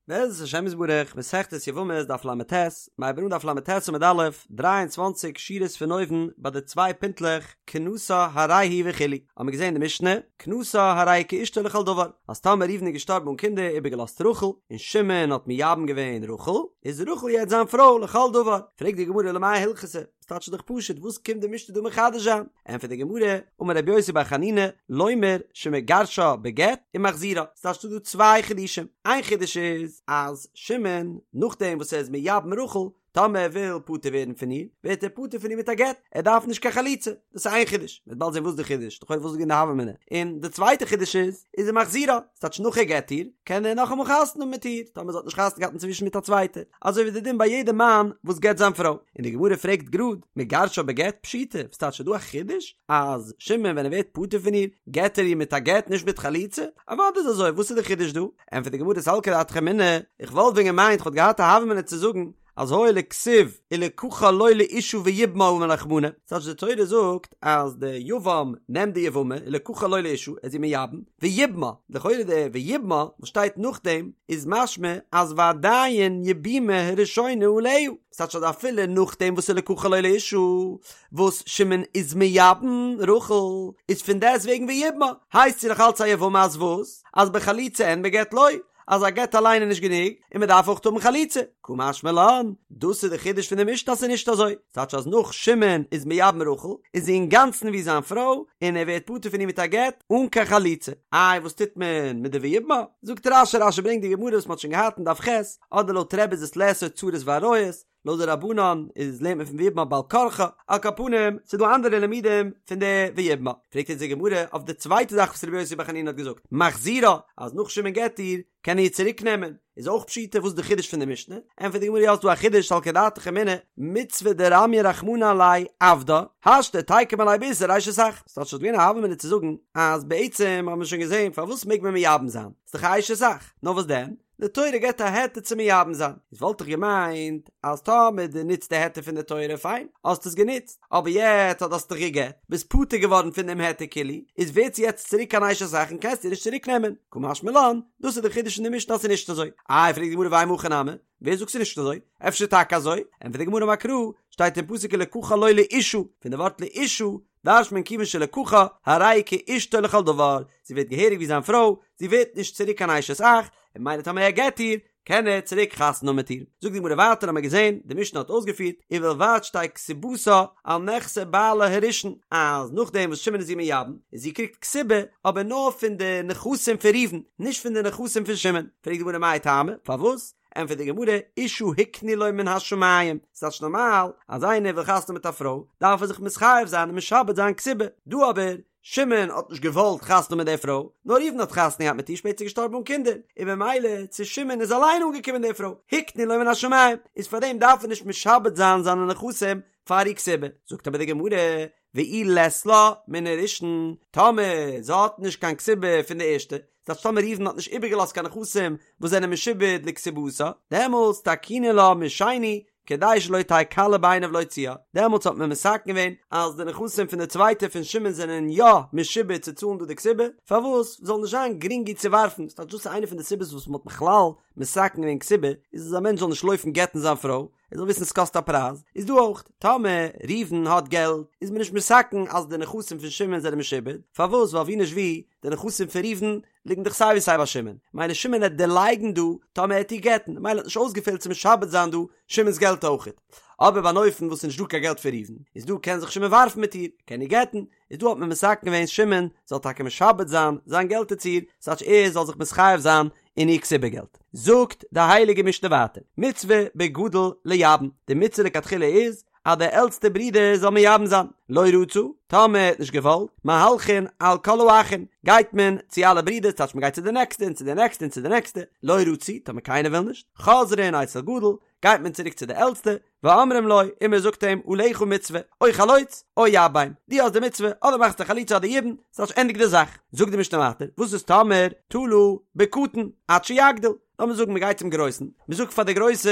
בעזרת השם יתברך, מסכת יבמות דף לט, מ'הייבט אן דף לט עמוד א', 23 שורות פון אויבן ביי די צוויי פינטלעך כנסה הרי היא וכו', האבן מיר געזען אין די משנה, כנסה הרי היא כאשתו לכל דבר, אז טאמער ראובן איז געשטארבן אן קינדער איבערגעלאזט רחל, און שמעון האט מייבם געווען רחל, איז רחל יעצט זיין פרוי לכל דבר, פרעגט די גמרא למאי הלכתא, ס'טייטש דאך פשוט, וואס קומט די משנה דא מחדש זיין? ענטפערט די גמרא, אמר רבי יוסי בר חנינא, לומר שמגרשה בגט ומחזירה, ס'טייטש ס'דא דא צוויי חידושים, איין חידוש איז אז שמעון נאכדעם וואס ער איז מייבם רחל, טאמער ער וויל פטור ווערן פון איר, ווערט ער פטור פון איר מיט א גט, ער דארף נישט קיין חליצה, דאס איז איין חידוש, מ'וועט באלד זען וואס די חידוש, לכאורה וואס איז געווען די הוה אמינא, און די צווייטע חידוש איז, איז ומחזירה, ס'טייטש נאך ער גט איר, קען ער נאכאמאל חתונה האבן מיט איר, טאמער זי האט נישט חתונה געהאט אינצווישן מיט א צווייטע, אזוי ווי די דין ביי יעדע מאן וואס גט זיין פרוי. און די גמרא פרעגט גראד, מגרשה בגט פשיטא, וואס טייטש ס'איז דא א חידוש אז שמעון ווען ער ווערט פטור פון איר, גט ער איר מיט א גט נישט מיט חליצה? אוודאי איז אזוי, וואס איז די חידוש דא? ענטפערט די גמרא סלקא דעתך אמינא, איך וואלט ווען געמיינט כ'וואלט געהאט א הוה אמינא צו זאגן, אז הואיל וכתיב ולקחה לו לאשה ויבמה אמר רחמנא, ס'טייטש די תורה זאגט אז די יבם נעמט די יבמה ולקחה לו לאשה ער איז איר מייבם ויבמה, לכאורה די ויבמה וואס שטייט נאכדעם איז משמע אז ועדיין יבומה הראשונה עליה, ס'טייטש אז אפילו נאכדעם וואס ולקחה לו לאשה וואס שמעון איז מייבם רחל איז פון דעסט וועגן ויבמה הייסט זי נאך אלץ א יבמה אז וואס? אז בחליצה אין בגט לא. אז א גט אליין איז נישט גענוג, און מען דארף אויך האבן חליצה. קא משמע לן, דאס איז די חידוש פון די משנה אז ס'איז נישט אזוי. ס'טייטש אז נאך שמעון איז מייבם רחל, איז זי אינגאנצן ווי זיין פרוי, און ער ווערט פטור פון איר מיט א גט, אן קיין חליצה. איי וואס טוט מען מיט די ויבמה? זאגט רש"י, רש"י ברענגט די גמרא וואס מ'האט שוין געהאט אין דף ח', אדער לויט רבי איז עס לאסור צרות ועריות, לויט די רבנן איז לערנט מען פון ויבמה בעל כרחה, על כל פנים ס'איז דא אנדערע לימודים פון די ויבמה, פרעגט אונז די גמרא אויף די צווייטע זאך וואס רבי יוסי בר חנינא האט געזאגט, מחזירה, אז נאך שמעון גט איר, קען ער איר צוריק נעמען, איז אויך פשיטא וואס איז די חידוש פון די משנה, ענטפערט די גמרא יא ס'דא א חידוש סלקא דעתך אמינא, מצוה דרמיא רחמנא עליה עבדה, השתא תיקום עליה באיסור אשת אח, ס'טייטש ס'וואלט געווען א הוה אמינא צו זאגן אז בעצם האבן מיר שוין געזען פארוואס מעג מען מייבם זיין, ס'דאך א אשת אח, נאר וואס דען? די תורה געבט א היתר צו מייבם זיין, איז וואלט איך געמיינט אז טאמער דו נוצט די היתר פון די תורה פיין, האסט עס גענוצט, אבער יעצט אז האסט דיך גע'גט, ביסט פטור געווארן פון דעם היתר כאילו, איז ווערט זי יעצט צוריק אן אשת אח און קענסט איר נישט צוריק נעמען, קא משמע לן, דאס איז די חידוש אין די משנה אז ס'איז נישט אזוי. איי פרעגט די גמרא ואימא הכי נמי, ווער זאגט ס'איז נישט אזוי? אפשר טאקע אזוי? ענטפערט די גמרא אמר קרא, שטייט אין פסוק ולקחה לו לאשה, פון די ווארט לאשה דרש'נט מען כיוון שלקחה, הרי היא כאשתו לכל דבר, זי ווערט געהעריג ווי זיין פרוי, זי ווערט נישט צוריק קיין אשת אח, און ממילא טאמער ער גט איר, קען ער צוריק חתונה האבן מיט איר. זאגט די גמרא ווייטער האמיר געזען, די משנה האט אויסגעפירט, ובלבד שתהא כתובתה על נכסי בעלה הראשון, אז נאכדעם וואס שמעון איז איר מייבם, און זי קריגט כתובה, אבער נאר פון די נכסים פון ראובן, נישט פון די נכסים פון שמעון. פרעגט די גמרא מאי טעמא, פארוואס? ענטפערט די גמרא, אשה הקנו לו מן השמים, ס'טייטש נארמאל אז איינער וויל חתונה מיט א פרוי, דארף ער זיך מתחייב זיין און משעבד זיין כתובה, דא אבער, שמעון האט נישט געוואלט חתונה מיט די פרוי, נאר ראובן האט חתונה געהאט מיט איר שפעטער געשטארבן אן קינדער, און במילא צו שמעון איז אליין אנגעקומען די פרוי, הקנו לו מן השמים, איז פארדעם דארף ער נישט משעבד זיין זיינע נכסים פאר איר כתובה, זאגט אבער די גמרא, ואי לית לה מן הראשון, טאמער זי האט נישט קיין כתובה פון די ערשטע, ס'טייטש טאמער ראובן האט נישט איבערגעלאזט קיין נכסים וואס זענען משועבד לכתובתה, דעמאלטס תקינו לה משני כדי שלא תהא קלה בעיניו להוציאה, דעמאלטס האט מען מתקן געווען אז די נכסים פון די צווייטע פון שמעון זענען יא משועבד צו צאלן דא די כתובה, פארוואס זאל נישט זיין גרינג איר צו ווארפן, ס'טייטש דאס איז איינע פון די סיבות וואס מ'האט בכלל מתקן געווען כתובה, איז אז א מענטש זאל נישט לויפן גט'ן זיין פרוי, ער זאל וויסן ס'קאסט א פרייז, איז דא אויך, טאמער ראובן האט געלט, איז מען נישט מתקן אז די נכסים פון שמעון זענען משועבד, פארוואס? ווייל ווי נישט ווי, די נכסים פון ראובן ליגן דאך סיי ווי סיי ביי שמעון, מילא שמעון העט דערלייגן דא טאמער ער העט איר גט'ן, מילא האט נישט אויסגעפעלט צו משעבד זיין דא שמעון'ס געלט אויכעט. אבער ביי אן אופן וואס ס'איז נישט דא קיין געלט פון ראובן, איז דא קען זיך שמעון ווארפן מיט איר, קען איר גט'ן, איז דא האט מען מתקן געווען שמעון זאל טאקע משעבד זיין זיין געלט צו איר, ס'טייטש ער זאל זיך מתחייב זיין אין איר כתובה געלט. זאגט די הייליגע משנה ווייטער, מצוה בגדול לייבם, די מצוה לכתחילה איז אז דער עלטסטער ברודער זאל מייבם זיין, לא רצה, טאמער ער האט נישט געוואלט, מהלכין על כל האחין, גייט מען צו אלע ברידער, ס'טייטש מען גייט צו די נעקסטע און צו די נעקסטע און צו די נעקסטע, לא רצו, טאמער קיינער וויל נישט, חוזרין אצל גדול, גייט מען צוריק צו די עלטסטע, ואומרים לו, און מען זאגט אים, עליך מצוה, או חלוץ, או יבם, דו האסט די מצוה, אדער מאכסטו חליצה אדער יבום, ס'טייטש ענדיג די זאך. זאגט די משנה ווייטער, וואס איז טאמער תלה בקטן, עד שיגדיל? לאמיר זאגן מ'גייט צום גרויסן, מ'זאגט פאר די גרויסע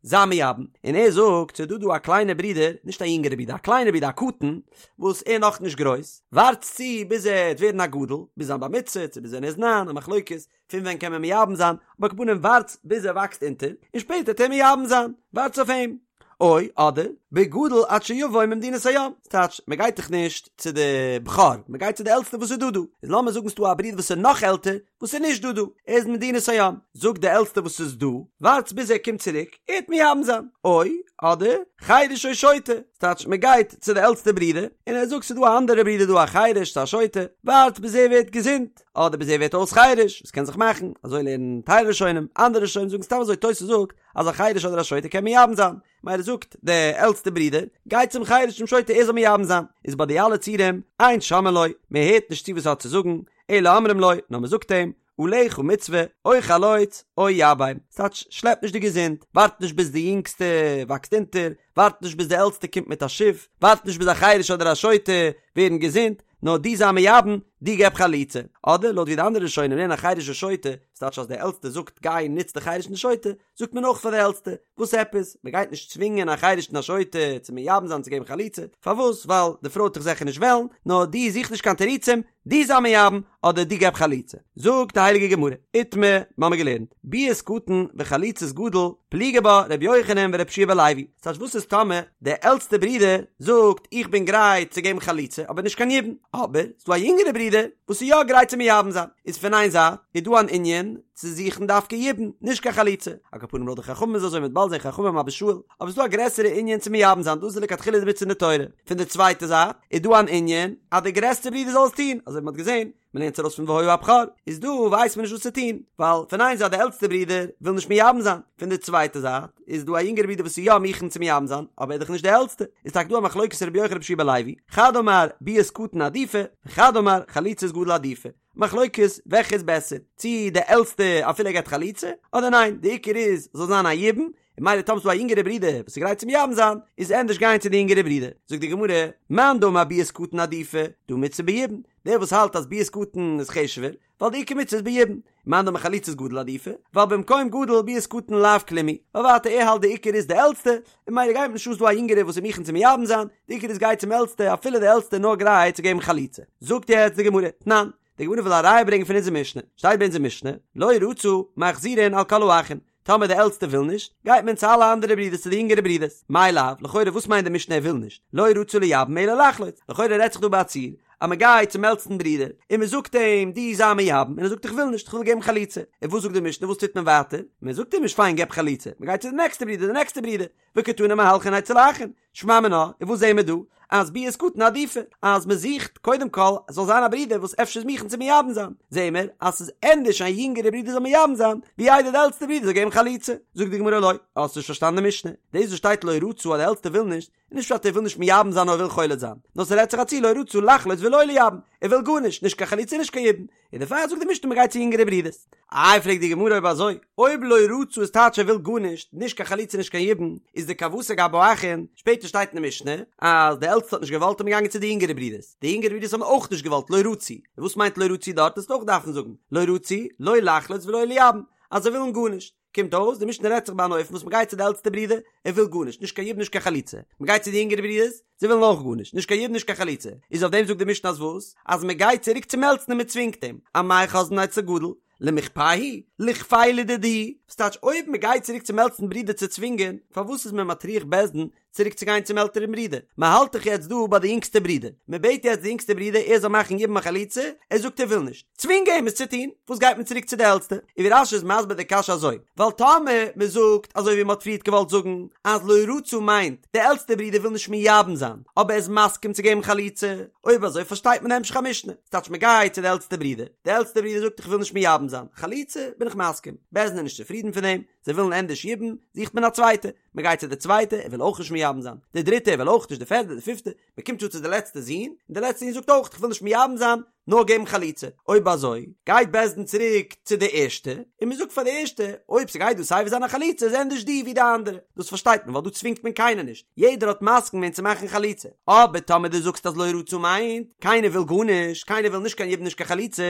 זיי מייבם, און ער זאגט ס'איז דא דא א קליינע ברודער, נישט א יונגערע ברודער, א קליינע ברודער א קטן, וואס ער נאך נישט גרויס, ווארטס צו ביז ער וועט ווערן א גדול, ביז זיין בר מצוה, צו ביז ווען ער איז ניין, א מחלוקת, פון ווען קען מען מייבם זיין, אבער על כל פנים ווארטס ביז ער וואקסט אונטער, און שפעטער וועט ער מייבם זיין, ווארטס אויף אים. או, אדער, בגדול עד שיבוא ממדינת הים, ס'טייטש, מען גייט דאך נישט צו די בכור, מען גייט צו די עלטסטע וואס איז דא דא, איז לאמיר זאגן ס'דא א ברודער וואס איז נאך עלטער, וואס איז נישט דא דא, ער איז מדינת הים, זאגט די עלטסטע וואס איז דא, ווארטס ביז ער קומט צוריק, ער וועט מייבם זיין, או, אדער, חרש או שוטה, ס'טייטש, מען גייט צו די עלטסטע ברודער, און ער זאגט ס'איז דא א אנדערע ברודער דא א חרש צו א שוטה, ווארטס ביז ער ווערט געזונט, אדער ביז ער ווערט אויס חרש, וואס קען זיך מאכן, אזוי לערנען טייל ראשונים, אנדערע ראשונים זאגן סתם אזוי, תוס' זאגט, אז א חרש אדער א שוטה קען מייבם זיין, מילא זאגט די עלטסטע ברודער, גיי צום חרש צום שוטה ער זאל מייבם זיין, איז ביי די אלע ציורים, אין שומעין לו, מען הערט נישט צו וואס ער האט צו זאגן, אלא אומרים לו, נאר מען זאגט אים, עליך מצוה, או חלוץ, או יבם, ס'טייטש, שלעפ נישט די געזונט, ווארט נישט ביז די יונגסטע וואקסט אונטער, ווארט נישט ביז די עלטסטע קומט מיט א שיף, ווארט נישט ביז א חרש אדער א שוטה ווערן געזונט, נאר דו זיי מייבם, דו געב חליצה. אדער לויט ווי די אנדערע ראשונים לערנען א חרש ושוטה, ס'טייטש אז דער עלטסטער זאגט גיי נוץ די חרש און די שוטה, זאגט מען אויך פאר די עלטסטע, וואס עפעס? מען גייט נישט צווינגען א חרש און א שוטה צו מייבם זיין צו געבן חליצה, פארוואס? ווייל די פרוי וועט דאך זיכער נישט וועלן, נאר דו זוך נישט קיין תירוצים, דו זיי מייבם, אדער דו געב חליצה. זאגט די הייליגע גמרא, איתמר, מ'האמיר געלערנט, ביאת קטן וחליצת גדול, פליגי בה ר' יוחנן ור' יהושע בן לוי, ס'טייטש וואס איז טאמער דער עלטסטער ברודער זאגט איך בין גרייט צו געבן חליצה אבער נישט קיין יבום, אבער ס'דא א יונגערע ברודער וואס איז יא גרייט צו מייבם זיין, איז פון איין זייט איז דא אן ענין צו זוכן דווקא יבום, נישט קיין חליצה, על כל פנים לויט די חכמים איז אזוי מ'וועט באלד זען חכמים אבא שאול, אבער ס'דא א גרעסערע ענין צו מייבם זיין דאס איז לכתחילה די מצוה אין די תורה, פון די צווייטע זייט איז דא אן ענין אז דער גרעסטער ברודער זאל עס טון, אזוי ווי מ'האט געזען מען לערנט ארויס פון והיה הבכור, איז דא ווייסט מען נישט וואס צו טון, ווייל פון איין זייט די עלטסטע ברודער וויל נישט מייבם זיין, פון די צווייטע זייט איז דא א יונגערע ברודער וואס איז יא מוכן צו מייבם זיין, אבער ער איז דאך נישט די עלטסטע, איז טאקע דא א מחלוקת רבי יוחנן רבי יהושע בן לוי, חד אמר ביאת קטן עדיפא, וחד אמר חליצת גדול עדיפא, מחלוקת וועלכע איז בעסער, צי די עלטסטע אפילו ער געבט חליצה, אדער ניין, די עיקר איז זאל זיין א יבום, און מילא טאמער ס'דא א יונגערע ברודער וואס איז גרייט צו מייבם זיין, איז ענדערש גיין צו די יונגערע ברודער. זאגט די גמרא, מאן דאמר ביאת קטן עדיפא, דהא מצוה ביבום, דער וואס האלט אז ביאת קטן איז חשוב'ער, ווייל די עיקר מצוה איז ביבום, מאן דאמר חליצת גדול עדיפא, ווייל במקום גדול ביאת קטן לאו כלום היא, ווייל ווייטער ער האלט די עיקר איז די עלטסטע, און מילא גייט נישט אן ס'דא א יונגערע וואס איז מוכן צו מייבם זיין, די עיקר איז גיי צום עלטסטע אפילו די עלטסטע איז נאר גרייט צו געבן חליצה. זאגט יעצט די גמרא, תנן, די גמרא וויל א ראיה ברענגען פון אונזער משנה, שטייט ביי אונזער משנה, לא רצה, מחזירין על כל האחין, טאמער די עלטסטע וויל נישט, גייט מען צו אלע אנדערע ברידערס צו די יונגערע ברידערס. מאי לאו, לכאורה וואס מיינט די משנה ער וויל נישט? לא רצה לייבם אלא לחלוץ. לכאורה רעדט זיך דא ביי א ציור אז מען גייט צום עלטסטן ברודער און מען זאגט אים דו זיי מייבם און ער זאגט איך וויל נישט איך וויל געבן חליצה. און וואס זאגט די משנה וואס טוט מען ווייטער? מען זאגט אים נישט פיין געב חליצה, מען גייט צו די נעקסטע ברודער די נעקסטע ברודער. וקתני מהלכין אצל האחין, שמע מינה, און וואס זעהן מיר דא? אז ביאת קטן עדיפא, אז מען זוכט קודם כל עס זאל זיין א ברודער וואס אפשר איז מוכן צו מייבם זיין, זעהן מיר אז ס'איז ענדערש א יונגערע ברודער זאל מייבם זיין, ווי איידער די עלטסטע ברודער זאל געבן חליצה. זאגט די גמרא לא, האסט נישט פארשטאנען די משנה, דאס וואס שטייט לא רצה אז די עלטסטע וויל נישט, איז נישט פשט ער וויל נישט מייבם זיין נאר ער וויל חולץ זיין, נאר ס'רעדט זיך א ציור לא רצה לחלוץ ולא לייבם, ער וויל גארנישט, נישט קיין חליצה נישט קיין יבום, און דערפאר זאגט די משנה מ'גייט צו יונגערע ברידערס. איי פרעגט די גמרא אויב אזוי, אויב לא רצה איז טייטש ער וויל גארנישט, נישט קיין חליצה נישט קיין יבום, איז דכוותיה גבי האחין, שפעטער שטייט אין די משנה אז די עלטסטע האט נישט געוואלט איז מען געגאנגען צו די יונגערע ברידערס, די יונגערע ברידערס האבן אויך נישט געוואלט לא רצו, און וואס מיינט לא רצו דארט וועסטו אויך דארפן זאגן לא רצו, לא לחלוץ ולא לייבם, אז זיי ווילן גארנישט. קומט אויס די משנה רעדט זיך ביי אן אופן וואס מ'גייט צו די עלטסטע ברודער, ער וויל גארנישט, נישט קיין יבום נישט קיין חליצה, מ'גייט צו די יונגערע ברודערס, זיי ווילן אויך גארנישט, נישט קיין יבום נישט קיין חליצה, איז אויף דעם זאגט די משנה אז וואס? אז מ'גייט צוריק צום עלטסטן און מ'צווינגט אים, אמאי חוזרין אצל גדול, למיכפייה ליכפיה לדידהו, וואס טייטש אויב מ'גייט צוריק צום עלטסטן ברודער צו צווינגען, פארוואס איז מען מטריח בית דין צוריק צו גיין צום עלטערן ברודער, מען האלט דאך יעצט דא ביי די יונגסטע ברודער, מען בעט יעצט די יונגסטע ברודער ער זאל מאכן יבום און חליצה, ער זאגט ער וויל נישט, צווינג אים עס צו טון, וואס גייט מען צוריק צו די עלטסטע? און ווי רש"י איז מסביר די קשיא אזוי, ווייל טאמער מען זאגט אזוי ווי מען האט פריערט געוואלט זאגן אז לא רצה מיינט די עלטסטע ברודער וויל נישט מייבם זיין אבער ער איז מסכים צו געבן חליצה, אויב אזוי פארשטייט מען די המשך המשנה, ס'טייטש מען גייט צו די עלטסטע ברודער, די עלטסטע ברודער זאגט איך וויל נישט מייבם זיין, חליצה בין איך מסכים, בית דין איז נישט צופרידן פון דעם, זיי ווילן ענדערש יבום, זוכט מען א צווייטע, מען גייט צו די צווייטע, ער וויל אויך נישט מייבם זיין, די דריטע, ער וויל אויך נישט, די פערדע, די פיפטע, מען קומט צו צו די לעצטע זון, און די לעצטע זון זאגט אויך, איך וויל נישט מייבם זיין, נאר געבן חליצה, אויב אזוי גייט בית דין צוריק צו די ערשטע, און מען זאגט פאר די ערשטע, אויב ס'גייט דא סייווי זיין א חליצה איז ענדערש דו ווי די אנדערע, דאס פארשטייט מען ווייל דא צווינגט מען קיינער נישט, יעדער האט מסכים געווען צו מאכן חליצה, אבער טאמער דו זאגסט אז לא רצו מיינט, קיינער וויל גארנישט, קיינער וויל נישט קיין יבום נישט קיין חליצה,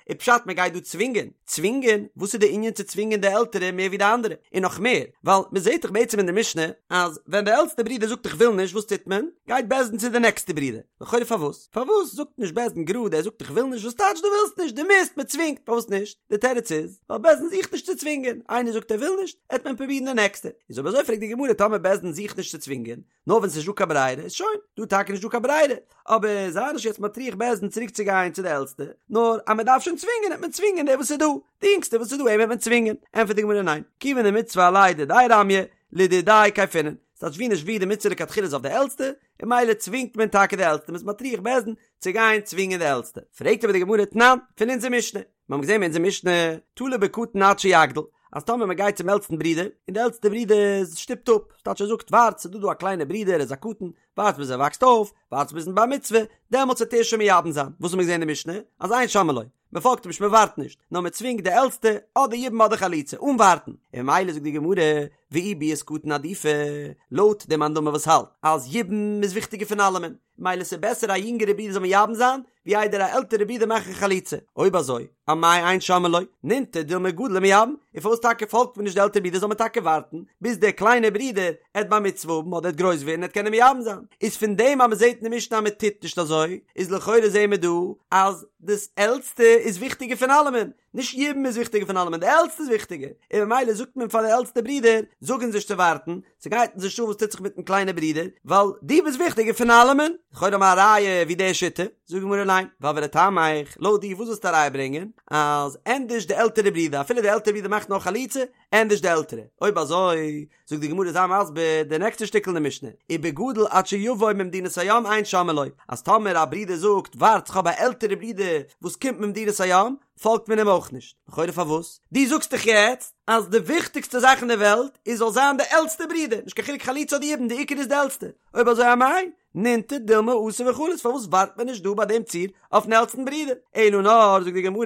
איז פשט מען גייט דא צווינגען, צווינגען? וואס איז די ענין צו צווינגען די עלטערע מער ווי די אנדערע? און נאך מער, ווייל מען זעט דאך בעצם אין די משנה אז ווען די עלטסטע ברודער זאגט איך וויל נישט וואס טוט מען? גייט בית דין צו די נעקסטע ברודער, לכאורה פארוואס? פארוואס זאגט נישט בית דין גראד ער זאגט איך וויל נישט וואס טייטש דו ווילסט נישט דו מוזט מען צווינגט פארוואס נישט? די תירוץ איז ווייל בית דין זוכט נישט צו צווינגען איינער זאגט ער וויל נישט עט מען פרובירן די נעקסטע איז אויב אזוי פרעגט די גמרא טאמער בית דין זוכט נישט צו צווינגען נאר ווען ס'נישט דא קיין ברירה איז שוין דא טאקע נישט דא קיין ברירה אבער זיי נישט יעצט מטריח בית דין צוריק צו גיין צו די עלטסטע נאר אז מען דארף שוין צווינגען עט מען צווינגען דער וואס איז דא די יונגסטע וואס איז דא אים עט מען צווינגען ענטפערט די גמרא ניין כיוון דמצוה עליה דידיה רמיא לדידיה כייפינן ס'טייטש ווי נישט ווי די מצוה לכתחילה איז אויף די עלטסטע און ממילא צווינגט מען טאקע די עלטסטע, מ'איז מטריח בית דין צו גיין צווינגען די עלטסטע. פרעגט אבער די גמרא תנן, פון אונזער משנה, מיר האבן געזען אין אונזער משנה, תלה בקטן עד שיגדיל, אז טאמער מען גייט צום עלטסטן ברודער, און די עלטסטע ברודער שטופט אפ, ס'טייטש ער זאגט ווארט ס'איז דא דא א קליינע ברודער ער איז א קטן, ווארט ביז ער וואקסט אויף, ווארט ביזן בר מצוה, דעמאלטס וועט ער שוין מייבם זיין, וואס האבן מיר געזען אין די משנה? אז אין שומעין לו, מען פאלגט אים נישט מען ווארט נישט, נאר מען צווינגט די עלטסטע אדער יבום אדער חליצה אן ווארטן, און ממילא זאגט די גמרא ואי ביאת קטן עדיפא, לויט די מאן דאמר וואס האלט אז יבום איז וויכטיגער פון אלעמען, ממילא ס'איז בעסער א יונגערע ברודער זאל מייבם זיין ווי איידער א עלטערע ברודער מאכן חליצה, אויב אזוי אמאי אין שומעין לו, נינטר דילמא גדיל ומייבם, און פארוואס טאקע פאלגט מען נישט די עלטערע ברודער זאל מען טאקע ווארטן ביז דער קליינער ברודער עט בר מצוה האבן אדער עט גרויס ווערן עט קענען מייבם זיין, איז פון דעם אז מען זעט אין די משנה אז מען טוט נישט אזוי, איז לכאורה זעהן מיר דא אז דאס עלטסטע איז וויכטיגער פון אלעמען, נישט יבום איז וויכטיגער פון אלעמען, די עלטסטע איז וויכטיגער, און ממילא זאגט מען פאר די עלטסטע ברודער, זאג אונז נישט צו ווארטן, ס'גייט אונז נישט אן וואס טוט זיך מיטן קליינע ברודער, ווייל דו ביסט וויכטיגער פון אלעמען. לכאורה האבן מיר א ראיה ווי די שיטה, זאגט די גמרא ניין, ווייל ולטעמיך, לויט דיר וואס ווילסטו א ראיה ברענגען, אז ענדערש די עלטערע ברודער, אפילו די עלטערע ברודער מאכט נאר חליצה, ענדערש די עלטערע, אויב אזוי, זאגט די גמרא זיי מסביר די נעקסטע שטיקל אין די משנה, ובגדול עד שיבוא ממדינת הים אין שומעין לו, אז טאמער א ברודער זאגט ווארט כ'האב א עלטערע ברודער וואס קומט ממדינת הים, פאלגט מען אים אויך נישט, לכאורה פארוואס? דו זאגסט דאך יעצט אז די וויכטיגסטע זאך אין די וועלט איז זאל זיין די עלטסטע ברודער, נישט קיין חילוק חליצה אדער יבום די עיקר איז די עלטסטע, אויב אזוי אמאי נינטר דילמא אתי וחליץ פארוואס ווארט מען נישט דא ביי דעם ציור אויפן עלטסטן ברודער? אלא נאר זאגט די גמרא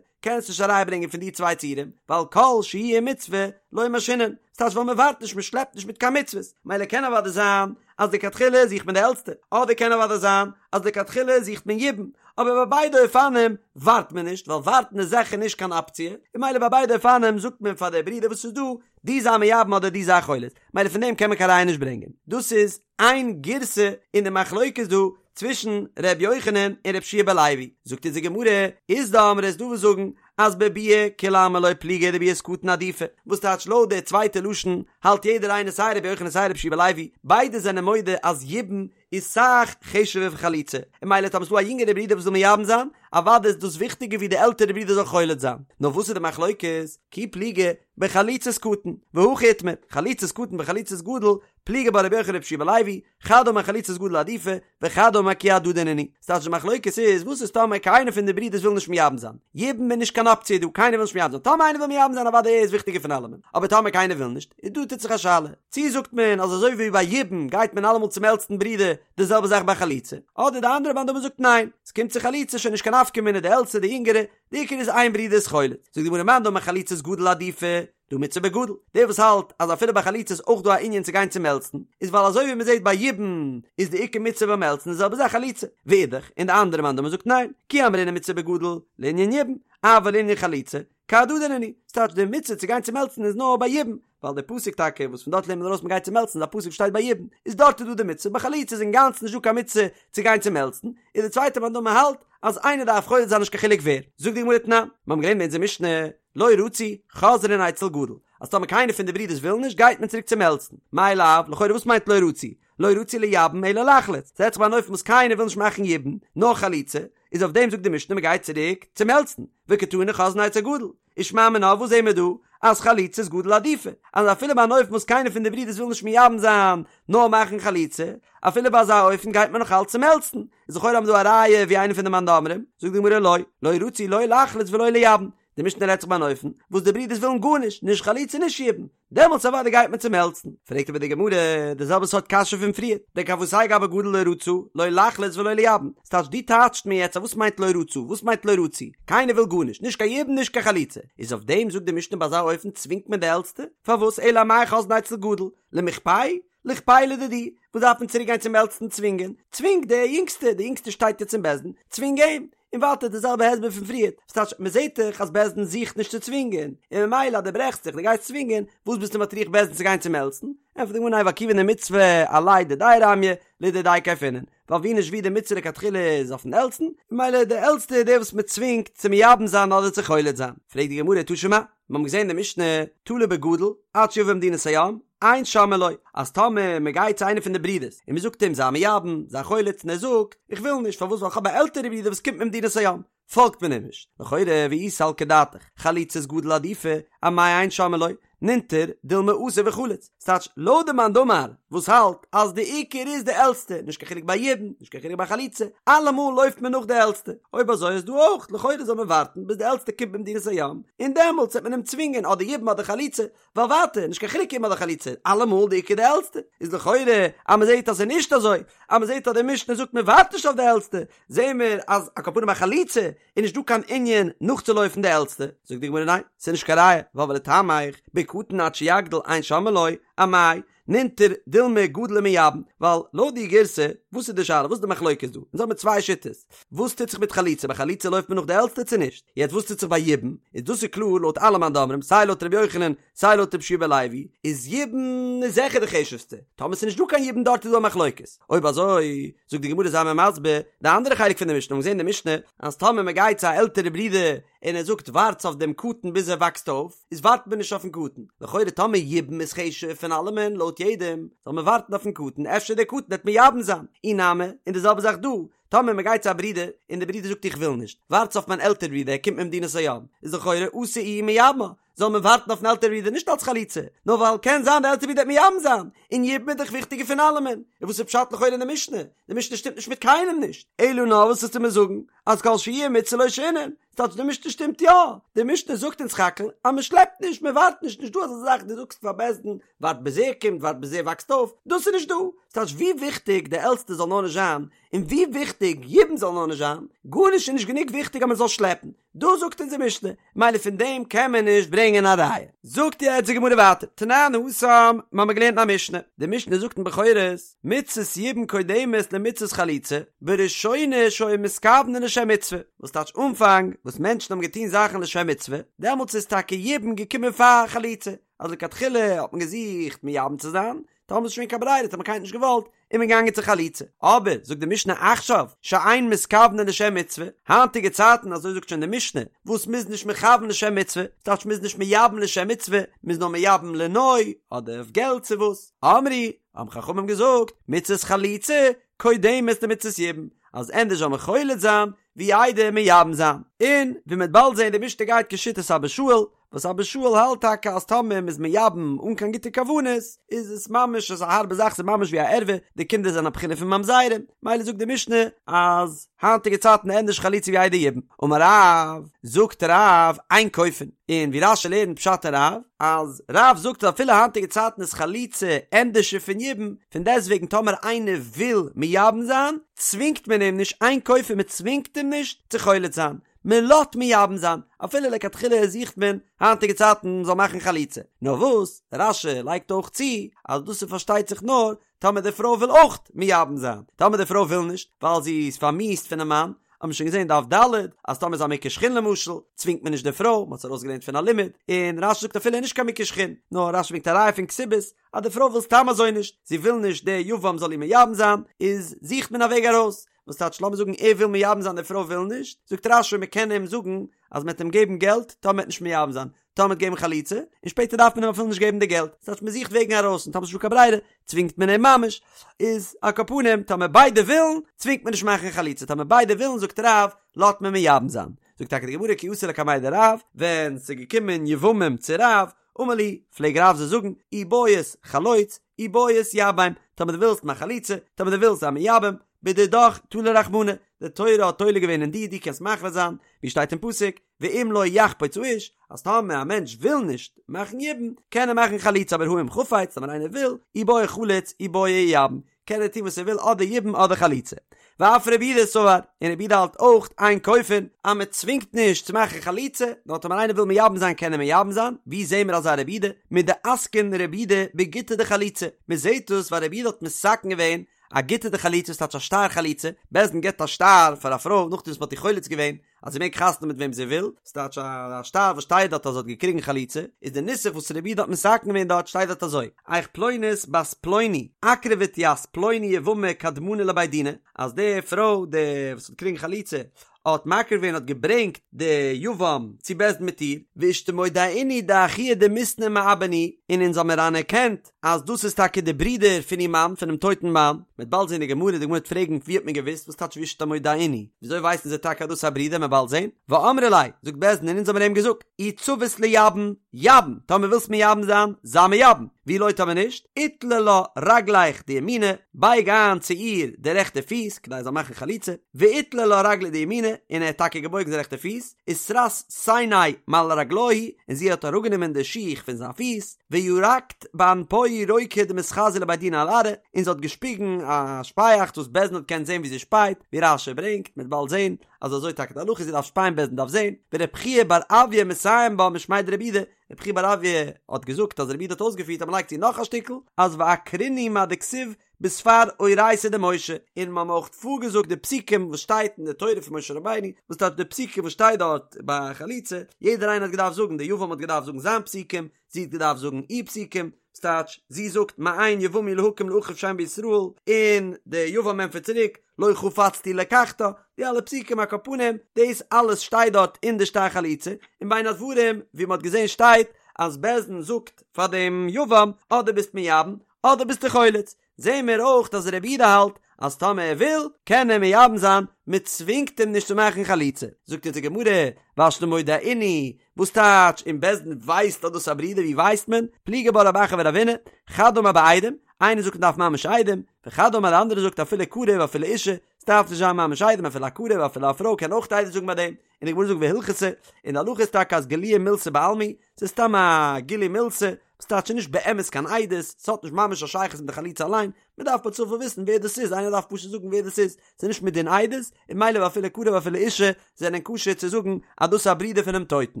קענסט נישט א ראיה ברענגען פון די צוויי ציורים, ווייל כל שהויי מצוה לא משהינן, ס'טייטש ווייל מ'ווארט נישט מ'שלעפט נישט מיט קיין מצוות, מילא קען אוודאי זיין אז לכתחילה זוכט מען די עלטסטע, אדער קען אוודאי זיין אז לכתחילה זוכט מען יבום, אבער ביי ביידע אופנים ווארט מען נישט, ווייל ווארטן איז זיכער נישט קיין אפציע, און מילא ביי ביידע אופנים זאגט מען פאר די ברודער וואס איז דא, דו זיי מייבם אדער דו זיי חולץ, מילא פון דעם קען מען קיין ראיה נישט ברענגען. דאס איז איין גירסא אין די מחלוקת דא צווישן ר' יוחנן און ר' יהושע בן לוי, זאגט אונז די גמרא, אית דאמרי איז דא וואס זאגן אז בביאה כולי עלמא לא פליגי דביאת קטן עדיפא, וואס טייטש לויט די צווייטע לשון האלט יעדער איינער סיי ר' יוחנן סיי ר' יהושע בן לוי, ביידע זענען מודה אז יבום איז סאך חשוב'ער פון חליצה, און מילא טאמער ס'דא א יונגערע ברודער וואס וויל מייבם זיין, אוודאי איז דאס וויכטיגער ווי די עלטערע ברודער זאל חולץ זיין, נאר וואס איז די מחלוקת? כי פליגי בחליצת קטן, והכי איתמר, חליצת קטן וחליצת גדול, פליגי בה רבי יוחנן ורבי יהושע בן לוי, חד אמר חליצת גדול עדיפא, וחד אמר כי הדדי נינהו. ס'טייטש די מחלוקת איז, וואס איז טאמער קיינער פון די ברידערס וויל נישט מייבם זיין? יבום איז נישט קיין אפציע דא, קיינער וויל נישט מייבם זיין. טאמער איינער וויל מייבם זיין אוודאי ער איז וויכטיגער פון אלעמען. אבער טאמער קיינער וויל נישט, איז דא טוט זיך א שאלה. צי זאגט מען אז אזוי ווי ביי יבום גייט מען אלעמאל צום עלטסטן ברודער, די זעלבע זאך ביי חליצה. אדער די אנדערע מאן דאמר זאגט ניין, ס'קומט צו חליצה שוין נישט קיין נפקא מינה די עלטסטע די יונגערע, די עיקר איז איין ברודער איז חולץ. זאגט די גמרא מאן דאמר חליצת גדול עדיפא, דהא מצוה בגדול, דער וואס האלט אז אפילו ביי חליצה איז אויך דא א ענין צו גיין צום עלטסטן, איז ווייל אזוי ווי מען זעט ביי יבום איז די עיקר מצוה ביים עלטסטן די זעלבע זאך חליצה, ואידך, און די אנדערע מאן דאמר זאגט ניין, כי אמרינן מצוה בגדול, לענין יבום, אבל לענין חליצה, כהדדי נינהו, ס'טייטש די מצוה צו גיין צום עלטסטן איז נאר ביי יבום, ווייל דער פסוק טאקע וואס פון דארט לערנט מען ארויס מען גייט צום עלטסטן איז א פסוק וואס שטייט ביי יבום, איז דארט איז דא די מצוה, ביי חליצה איז אינגאנצן נישט דא קיין מצוה צו גיין צום עלטסטן, איז די צווייטע מאן דאמר האלט אז איינער דארף חולץ זיין נישט קיין חילוק ווער, זאגט די גמרא תנן, מיר האבן געלערנט אין אונזער משנה, לא רצו, חוזרין אצל גדול, אז טאמער קיינער פון די ברידערס וויל נישט, גייט מען צוריק צום עלטסטן. מאי לאו, לכאורה וואס מיינט לא רצו? לא רצו לייבם אלא לחלוץ, ס'רעדט זיך ביי אן אופן וואס קיינער וויל נישט מאכן יבום, נאר חליצה, איז אויף דעם זאגט די משנה מ'גייט צוריק צום עלטסטן, וקתני חוזרין אצל גדול, ושמע מינה וואס זעהן מיר דא? אז חליצת גדול עדיפא, אז אפילו ביי אן אופן וואס קיינער פון די ברידערס וויל נישט מייבם זיין, נאר מאכן חליצה, אפילו ביי אזא אופן גייט מען נאך אלץ צום עלטסטן, איז לכאורה האבן מיר דא א ראיה ווי איינער פון די מאן דאמרים, זאגט די גמרא לא, לא רצו לא לחלוץ ולא לייבם. די משנה רעדט זיך ביי אן אופן וואס די ברידערס ווילן גארנישט, נישט חליצה נישט יבום, דעמאלטס אוודאי גייט מען צום עלטסטן. פרעגט אבער די גמרא די זעלבע סארט קשיא פון פריער, דכוותיה גבי גדול לא רצה, לא לחלוץ ולא לייבם, ס'טייטש דו טייטשט מיר יעצט אז וואס מיינט לא רצה, וואס מיינט לא רצו, קיינער וויל גארנישט, נישט קיין יבום נישט קיין חליצה, איז אויף דעם זאגט די משנה ביי אזא אופן צווינגט מען די עלטסטע, פארוואס אלא אמאי חוזרין אצל גדול, למיכפייה? ליכפייה לדידהו, וואס דארף מען צוריק גיין צום עלטסטן צווינגען? צווינג די יונגסטע, די יונגסטע שטייט יעצט אין בית דין, צווינג אים! און ווייטער די זעלבע הסבר פון פריערט, וואס טייטש מען זעט דאך אז בית דין זוכט נישט צו צווינגען, און ממילא אז דו ברעכסט זיך דו גייסט צווינגען, וואס ביסטו מטריח בית דין צו גיין צום עלטסטן? ענטפערט די גמרא ניין ווייל כיוון דמצוה עליה דידיה רמיא, לדידיה כייפינן, ווייל ווי נישט ווי די מצוה לכתחילה איז אויפן עלטסטן, ממילא די עלטסטע איז דער וואס מען צווינגט צו מייבם זיין אדער צו חולץ זיין. פרעגט די גמרא תא שמע, מיר האבן געזען אין די משנה, תלה בגדול, עד שיבא ממדינת הים, אין שומעין לו, אז טאמער מען גייט צו איינער פון די ברידערס און מען זאגט אים זיי מייבם, זיי חולץ און ער זאגט, איך וויל נישט, פארוואס ווייל איך האב א עלטערע ברודער וואס קומט ממדינת הים, פאלגט מען אים נישט, לכאורה ואי סלקא דעתך, חליצת גדול עדיפא, אמאי אין שומעין לו, נינטר דילמא אתי וחליץ, ס'טייטש לויט די מאן דאמר וואס האלט אז די עיקר איז די עלטסטע, נישט קיין חילוק ביי יבום, נישט קיין חילוק ביי חליצה, אלעמאל לויפט מען נאך די עלטסטע, אויב אזוי איז דא אויך, לכאורה זאל מען ווארטן ביז די עלטסטע קומט ממדינת הים, און דעמאלטס וועט מען אים צווינגען אדער יבום אדער חליצה, ווייל ווייטער, נישט קיין חילוק יבום אדער חליצה, אלעמאל די עיקר די עלטסטע, איז לכאורה אז מען זעט אז ס'איז נישט אזוי, אז מען זעט אז די משנה זאגט מען ווארט נישט אויף די עלטסטע, זעהן מיר אז על כל פנים ביי חליצה איז נישט דא קיין ענין נאכצולויפן די עלטסטע, זאגט די גמרא ניין, ס'איז נישט קיין ראיה, ווייל ולטעמיך, בקטן עד שיגדיל אין שומעין לו, אמאי, נינטר דילמא גדיל ומייבם, ווייל לויט די גירסא, וואס איז די שאלה, וואס איז די מחלוקת דא? אונז האבן צוויי שיטות, וואס טוט זיך מיט חליצה, ביי חליצה לויפט מען נאך די עלטסטע צו נישט? יעצט וואס טוט זיך ביי יבום, איז דאס איז קלאר לויט אלע מאן דאמרים, סיי לויט ר' יוחנן, סיי לויט רבי יהושע בן לוי, איז יבום איז זיכער די חשוב'סטע, טאמער ס'איז נישט דא קיין יבום דארט איז דא א מחלוקת, אויב אזוי, זאגט די גמרא זיי מיר מסביר, די אנדערע חלק פון די משנה, מ'האט געזען אין די משנה, אז טאמער מ'גייט צו א עלטערע ברודער און ער זאגט ווארטס אויף דעם קטן ביז ער וואקסט אויף, איז ווארט מען נישט אויפן קטן, לכאורה טאמער יבום איז חשוב פון אלעמען לויט יעדעם, זאל מען ווארטן אויפן קטן, אפשר דער קטן וועט מייבם זיין, אי נמי, און די זעלבע זאך דא, טאמער מען גייט צו א ברודער און דער ברודער זאגט איך וויל נישט, ווארטס אויף מיין עלטער ברודער ער קומט ממדינת הים, איז לכאורה אתי איהו ומייבמה, זאל מען ווארטן אויפן עלטער ברודער נישט אלס חליצה, נאר ווייל קען זיין דער עלטער ברודער וועט מייבם זיין, און יבום איז דאך וויכטיגער פון אלעמען, און וואס איז פשט לכאורה אין די משנה? די משנה שטימט נישט מיט קיינעם נישט, אלא נאר וואס וועסטו מיר זאגן אז כל שהויי מצוה לא שהינן, ס'טייטש די משנה שטימט יא, די משנה זאגט אונז סך הכל אז מען שלעפט נישט, מען ווארט נישט, נישט דא אזא זאך דו זאגסט פאר בית דין ווארט ביז ער קומט, ווארט ביז ער וואקסט אויף, דאס איז נישט דא, ס'טייטש ווי וויכטיג די עלטסטע זאל נאר נישט זיין, און ווי וויכטיג יבום זאל נאר נישט זיין, גארנישט איז נישט גענוג וויכטיג אז מען זאל שלעפן, דאס זאגט אונז די משנה, מילא פון דעם קען מען נישט ברענגען א ראיה. זאגט יעצט די גמרא ווייטער, תנן התם, מ'האמיר געלערנט אין א משנה, די משנה זאגט אין בכורות, מצות יבום קודמת למצות חליצה, בראשונה שהיו מתכוונין לשם מצוה, וואס טייטש אנפאנג וואס מענטשן האבן געטון זאכן לשם מצוה, דעמאלטס איז טאקע יבום געקומען פאר חליצה, אז לכתחילה האט מען געזוכט מייבם צו זיין, טאמער איז שוין קיין ברירה האט מען קיינער נישט געוואלט, איז מען געגאנגען צו חליצה. אבער, זאגט די משנה עכשיו, שאין מתכוונין לשם מצוה, היינטיגע צייטן, אזוי זאגט שוין די משנה, וואס מ'איז נישט מכוון לשם מצוה, ס'טייטש מ'איז נישט מייבם לשם מצוה, מ'איז נאר מייבם לנוי, אדער אויף געלט צו וואס. אמרו, האבן חכמים געזאגט, מצות חליצה קודמת למצות יבום, אז ענדערש זאל מען חולץ זיין, ווי איידער מייבם זיין. און, ווי מ'וועט באלד זען, די משנה גייט כשיטת אבא שאול, וואס אבא שאול האלט טאקע אז טאמער מ'איז מייבם אן קיין גוטע כוונות איז עס ממש אזא הארבע זאך ס'איז ממש ווי א ערווה די קינדער זענען א בחינה פון ממזרים מילא זאגט די משנה אז היינטיגע צייטן ענדערש חליצה ווי איידער יבום אמר רב זאגט רב אין כופין און ווי רש"י לערנט פשט אין רב אז רב זאגט אז אפילו היינטיגע צייטן איז חליצה ענדערשער פון יבום פון דעסטוועגן טאמער איינער וויל מייבם זיין צווינגט מען אים נישט אין כופין מ'צווינגט אים נישט צו חולץ זיין מען לאזט מייבם זיין, אפילו לכתחילה זוכט מען היינטיגע צייטן מען זאל מאכן חליצה, נאר וואס רש"י לייגט אויך צו אז דאס איז פארשטייט זיך נאר טאמער די פרוי וויל אויך מייבם זיין, טאמער די פרוי וויל נישט ווייל זי איז פארמיאוסט פונעם מאן, האט מען שוין געזען דף ד' אז טאמער איז א מוכה שחין למשל צווינגט מען נישט די פרוי, מען האט עס ארויסגעלערנט פון א לימוד, און רש"י זאגט אפילו נישט קיין מוכה שחין, נאר רש"י ברענגט א ראיה פון כתובות אז די פרוי וויל סתם אזוי נישט, זי וויל נישט די יבם זאל איר מייבם זיין, איז זוכט מען א וועג ארויס, וואס טייטש לאמיר זאגן ער וויל מייבם זיין די פרוי וויל נישט, זאגט רש"י מען קען אים זאגן אז מען וועט אים געבן געלט טאמער מען וועט נישט מייבם זיין, טאמער מען וועט געבן חליצה, און שפעטער דארף מען אים אפילו נישט געבן די געלט, ס'טייטש מען זוכט וועגן ארויס און טאמער ס'נישטא קיין ברירה צווינגט מען אים ממש, איז על כל פנים טאמער ביידע ווילן צווינגט מען נישט מאכן חליצה, טאמער ביידע ווילן זאגט רב לאזט מען מייבם זיין, זאגט טאקע די גמרא כי אתו לקמיה דרב, ווען ס'איז געקומען יבמים צו רב, אמר להו, פלעג רב זיי זאגן, אי בעית חלוץ, אי בעית ייבם, טאמער דו ווילסט מאך חליצה, טאמער דו ווילסט זיי מייבם, בדידך תלי רחמנא, די תורה האט תולה געווען אין דיר, דו קענסט מחליט זיין, ווי שטייט אין פסוק, ואם לא יחפוץ האיש, אז טאמער א מענטש וויל נישט מאכן יבום, קען ער מאכן חליצה, אבער הא אם חפץ, טאמער איינער וויל, אי בעי חליץ, אי בעי ייבם, קען ער טון וואס ער וויל אדער יבום אדער חליצה. ואף רבי יהודה סבר, און רבי יהודה האלט אויך אין כופין, אז מען צווינגט נישט צו מאכן חליצה, נאר טאמער איינער וויל מייבם זיין קען ער מייבם זיין, ווי זעהן מיר אזא רבי יהודה? מדאתקין רבי יהודה בגיטא דחליצה, מען זעהט דאס ווייל רבי יהודה האט מתקן געווען א גיטא דחליצה ס'טייטש א שטר חליצה, בית דין געבט א שטר פאר א פרוי נאכדעם וואס מען האט איר חולץ געווען, אז זי מעג חתונה מיט וועם זי וויל, ס'טייטש א שטר וואס שטייט דארט אז זי האט געקריגן חליצה, איז די נוסח וואס רבי יהודה האט מתקן געווען דארט שטייט דארט אזוי, איך פלונית בת פלוני אקרבת ית פלוני יבמה קדמנא לבי דינא, אז די פרוי די וואס האט געקריגן חליצה האט מקריב געווען האט געברענגט די יבם צו בית דין מיט איר, ואשתמודעינהו דאחוה דמיתנא מעבן הוא, און אונז האמיר אנערקענט אז דאס איז טאקע די ברודער פון איר מאן, פונעם טויטן מאן, מ'וועט באלד זען די גמרא, די גמרא וועט פרעגן ווי האט מען געוואוסט, וואס טייטש ואשתמודעינהו, וויאזוי ווייסן זיי טאקע אז דאס איז א ברודער, מ'וועט באלד זען, ואמרי ליה, זאגט בית דין און אונז האבן אים געזאגט, אי צבית לייבם, ייבם, טאמער ווילסט מייבם זיין, זיי מייבם, ואי לא טאמער נישט, איטלע לה רגליך דימינא, בייג איין צו איר די רעכטע פיס, כדי זי זאל מאכן חליצה, ואיטלע לה רגליה דימינא, און ער האט טאקע געבויגן זיין רעכטע פיס, וסרית סיניה מעל רגלוהי, און זי האט אראפגענומען די שיך פון זיין פיס, וירקת באנפוהי רוקא דמתחזיא לבי דינא על ארעא, און זי האט געשפיגן א שפייאכץ וואס בית דין האט געקענט זען ווי זי שפייט, ווי רש"י ברענגט, מ'וועט באלד זען אז אזוי טאקע די הלכה זי דארף שפייען בית דין דארף זען, ורבי חייא בר אויא מסיים בה משמיה דרבי יהודה, רבי חייא בר אויא האט געזאגט אז רבי יהודה האט אויסגעפירט אז מ'לייגט צו נאך א שטיקל, אז ואקרינהו מה דכתיב בספר אורייתא דמשה, און מ'האבן אויך פארגעזאגט די פסוקים וואס שטייט אין די תורה פון משה רבינו, וואס טייטש די פסוקים וואס שטייט דארט ביי חליצה, יעדער איינער האט געדארפט זאגן, די יבם האט געדארפט זאגן זיין פסוקים, זי האט געדארפט זאגן איר פסוקים, ס'טייטש, זי זאגט מאן יבם הוא להקים לאחיו שם בישראל, און די יבם ענטפערט צוריק, לא חפצתי לקחתה, די אלע פסוקים על כל פנים, דאס אלעס שטייט דארט אין די שטר חליצה, און בין הדברים ווי מ'האט געזען שטייט אז בית דין זאגט פאר דעם יבם, אדער ביסט מייבם, אדער ביסטו חולץ, זעהן מיר אויך אז רבי יהודה האלט אז טאמער ער וויל קען ער מייבם זיין, מען צווינגט אים נישט צו מאכן חליצה. זאגט אונז די גמרא, והשתא מודעינהו, וואס טייטש און בית דין ווייסט אז דאס איז א ברודער ווי ווייסט מען? פליגי בה רב אחא ורבינא, חד אמר בעדים, איינער זאגט מען דארף ממש עדים, וחד אמר די אנדערע זאגט אפילו קרוב אפילו אישה, ס'דארף נישט זיין ממש עדים אפילו א קרוב אפילו א פרוי קען אויך עדות זאגן ביי דעם, און די גמרא זאגט והלכתא, און די הלכה איז טאקע אז גילויא מילתא בעלמא, ס'איז סתם א גילוי מילתא, וואס טייטש נישט באמת קיין עדות, ס'האט נישט ממש א שייכות מיט די חליצה אליין, מ'דארף פער צופאל וויסן ווער דאס איז, איינער דארף פשוט זאגן ווער דאס איז, ס'איז נישט מדין עדות, און ממילא ואפילו קרוב ואפילו אישה זענען כשר צו זאגן אז דאס איז א ברודער פונעם טויטן.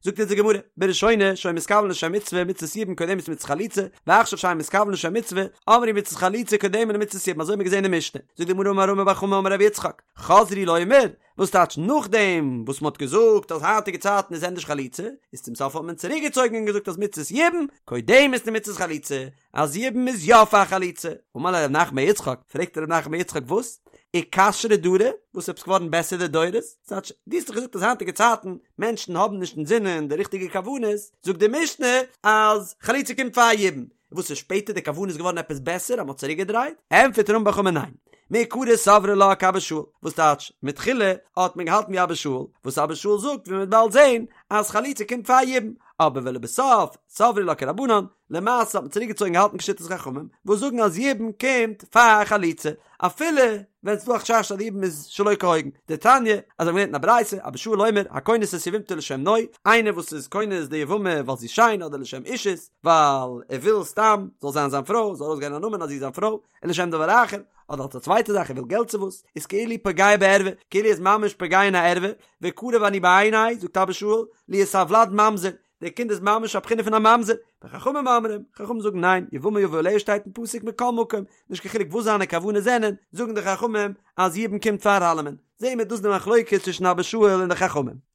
זאגט אונז די גמרא, בראשונה שהיו מתכוונין לשם מצוה, מצות יבום קודמת למצות חליצה, ועכשיו שאין מתכוונין לשם מצוה, אמרו מצות חליצה קודמת למצות יבום, אזוי האט מען געזען אין משנה. זאגט די גמרא אמר רמי בר חמא אמר רבי יצחק, חזרו לומר, וואס טייטש נאכדעם וואס מ'האט געזאגט אז היינטיגע צייטן איז ענדערש חליצה, איז צום סוף האט מען צוריק געצויגן און געזאגט אז מצות יבום קודמת למצות חליצה, אז יבום איז יא פאר חליצה. אמר ליה רב נחמן בר יצחק, פרעגט רב נחמן בר יצחק וואס? אכשרו דרי? וואס עפעס געווארן בעסער די דורות? ס'טייטש, דו האסט דאך געזאגט אז היינטיגע צייטן מענטשן האבן נישט אינזינען די ריכטיגע כוונות, זאגט די משנה אז חליצה קומט פאר יבום, וואס איז שפעטער די כוונה איז געווארן עפעס בעסער אז מ'האט צוריק געדרייט? ענטפערט רמי בר חמא ניין, מעיקרא סברי לה כאבא שאול, וואס טייטש מתחילה האט מען געהאלטן ווי אבא שאול, וואס אבא שאול זאגט ווי מ'וועט באלד זעהן אז חליצה קומט פאר יבום, אבער ולבסוף סברי לה כרבנן, למעשה האט מען צוריק געצויגן געהאלטן כשיטת חכמים וואס זאגן אז יבום קומט פאר חליצה, אפילו ווען ס'דא א חשש אז די יבום איז שלא כהוגן, דתניא, אזוי האבן מיר געלערנט אין א ברייתא, אבא שאול אומר, הכונס את יבמתו לשם נוי, איינער וואס איז כונס די יבמה ווייל זי איז שיין אדער לשם אישות, ווייל ער וויל סתם זאל זיין זיין פרוי, זאל ארויסגיין א נאמען אז זי איז זיין פרוי, און לשם דבר אחר, אדער אלס א צווייטע זאך ער וויל געלט צו וואס, איז כאילו פוגע בערווה, כאילו ער איז ממש פוגע אין א ערווה, וקרוב אני בעיני, זאגט אבא שאול, להיות הולד ממזר, דער קינד איז ממש א בחינה פון א ממזר, וחכמים אומרים, חכמים זאגן ניין, יבמה יבא עליה שטייט אין פסוק מכל מקום, נישט קיין חילוק וואס זיינע כוונות זענען, זאגן די חכמים אז יבום קומט פאר אלעמען, זעהן מיר דאס די מחלוקת צווישן אבא שאול און די חכמים.